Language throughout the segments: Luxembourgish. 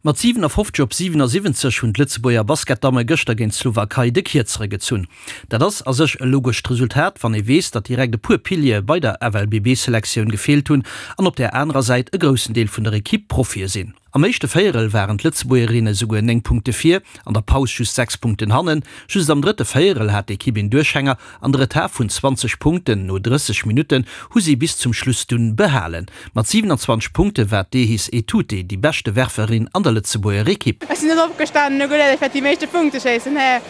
Mat 57 op 77 hunn d'Lëtzebuerger Basketdamme gëschter géint d'Slowakei de Kierzere gezunn. Dat ass a sech e logescht Resultat, wann ee weess, datt direkt e puer Piliere bei der FLBB-Selektioun gefeelt hunn an op där anerer Säit e groussen Deel vun der Ekipp Profie sinn. Am éischte Véierel waren d'Lëtzebuergerinne souguer 9 Punkte vir, an der Paus just 6 Punkten hannen. Just am drëtte Véierel hat d'Ekipp een Duerchhänger an de Retard vun 20 Punkten no 30 Minutten hu si bis zum Schluss dunn behalen. Mat 27 Punkte war d'Ehis Etute déi beschte Werferin an der Lëtzebuerger Ekipp. Ech sinn net opgestanen an hu geduet, ech wäert déi meeschte Punkte schéissen. Hä,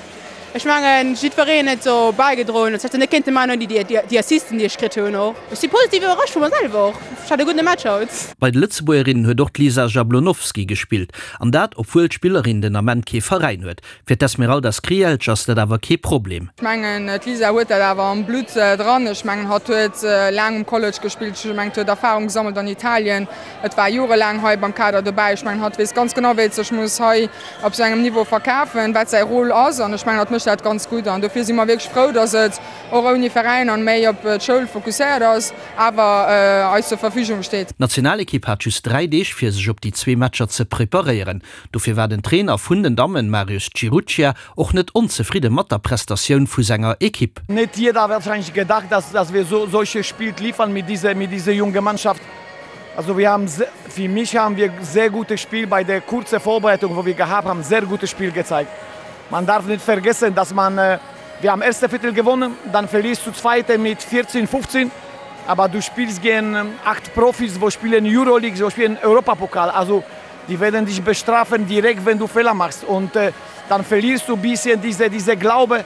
ech mengen, jiddwereen huet sou bäigedroen. Ech hätt se net kéinte maachen ouni déi Assisten, déi ech kritt hunn och. Ech si positiv iwwerrascht vu mer selwer och. Ech hat e gudde Match haut. Bei de Lëtzebuergerinnen huet och d'Lisa Jablonowski gespillt, an dat obwuel d'Spillerin den Ament kee Veräin huet. Fir d'Esmeralda Skrijelj ass dat awer kee Problem. Ech mengen, d'Lisa huet dat awer am Blutt dran. Ech mengen, hatt huet laang um College gespillt. Ech mengen, huet Erfarung gesammelt an Italien. Et war jorelaang hei beim Kader dobäi. Ech mengen, hatt weess ganz genau, wéi et sech muss hei op esou engem Niveau verkafen, wat säi Rôle ass. An ech mengen, hatt mécht dat ganz gutt. An dofir si mer wierklech frou, datt et och ouni Veräin an méi op d'Schoul fokusséiert ass, awer eis zur Verfügung steet. D'Nationalekipp hat just 3 Deeg, fir sech op déi zwee Matcher ze preparéieren. Dofir war den Trainer vun den Dammen, Marius Ciruccia, och net onzefridde mat der Prestatioun vu senger Ekipp. Nicht jeder hat wahrscheinlich gedacht, dass, dass wir so solche Spiel liefern mit dieser, mit dieser jungen Mannschaft. Also wir haben, für mich haben wir sehr gutes Spiel bei der kurzen Vorbereitung, wo wir gehabt haben, sehr gutes Spiel gezeigt. Man darf nicht vergessen, dass man, äh, wir haben erste Viertel gewonnen, dann verlierst du zweite mit 14, 15. Aber du spielst gegen ähm, acht Profis, wo spielen Euroleague, wo spielen Europapokal. Also die werden dich bestrafen direkt, wenn du Fehler machst. Und äh, dann verlierst du ein bisschen diese, diese Glaube.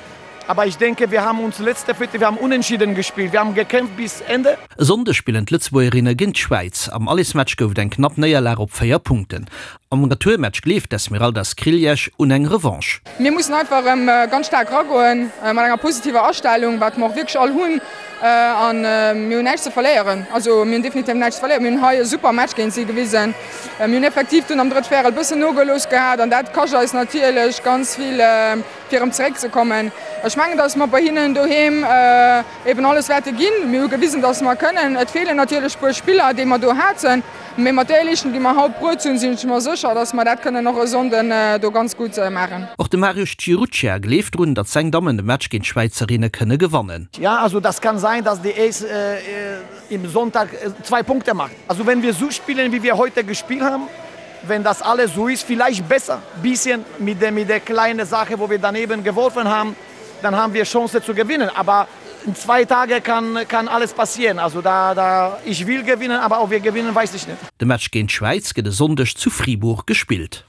Aber ich denke, wir haben uns letzte Viertel, wir haben unentschieden gespielt. Wir haben gekämpft bis Ende. E Sonndeg spillen d'Lëtzebuergerinne géint d'Schwäiz. Am Allesmatch gouf et eng knapp Néierlag op 4 Punkten. Am Retourmatch gleeft d'Esmeralda Skriljec un eng Revanche. Mir mussen einfach erëm ganz staark eragoen, mat enger positiver Astellung, wat mer och wierklech all hunn. A mir hunn näischt ze verléieren. Also mir hunn definitiv näischt ze verléieren. Mir hunn hei e super Match géint si gewisen. Mir hunn effektiv dunn am drëtt Véierel bëssen nogelooss gehat an dat kascht eis natierlech ganz vill, fir erëm zeréckzekommen. Ech mengen, datt mer bei hinnen doheem eben alles wäerte ginn. Mir hu gewisen, datt mer kënnen. Et feelen natierlech e puer Spiller, déi mer do haten, mee mat där Leeschtung, déi mer haut bruet hunn, sinn ech mer sécher, datt mer dat kënnen och e Sonnden do ganz gutt maachen. Och de Mariusz Ciruccia gleeft drun, datt seng Dammen de Match géint d'Schwäizerinne kënne gewannen. Ja, also das kann sein, dass die Ace im Sonntag zwei Punkte macht. Also wenn wir so spielen, wie wir heute gespielt haben, wenn das alles so ist, vielleicht besser, bisschen mit der, mit der kleinen Sache, wo wir daneben geworfen haben, dann haben wir Chance zu gewinnen. Aber in zwei Tagen kann, kann alles passieren. Also da, da, ich will gewinnen, aber ob wir gewinnen, weiß ich nicht. De Match géint d'Schwäiz gëtt e Sonndeg zu Fribourg gespillt.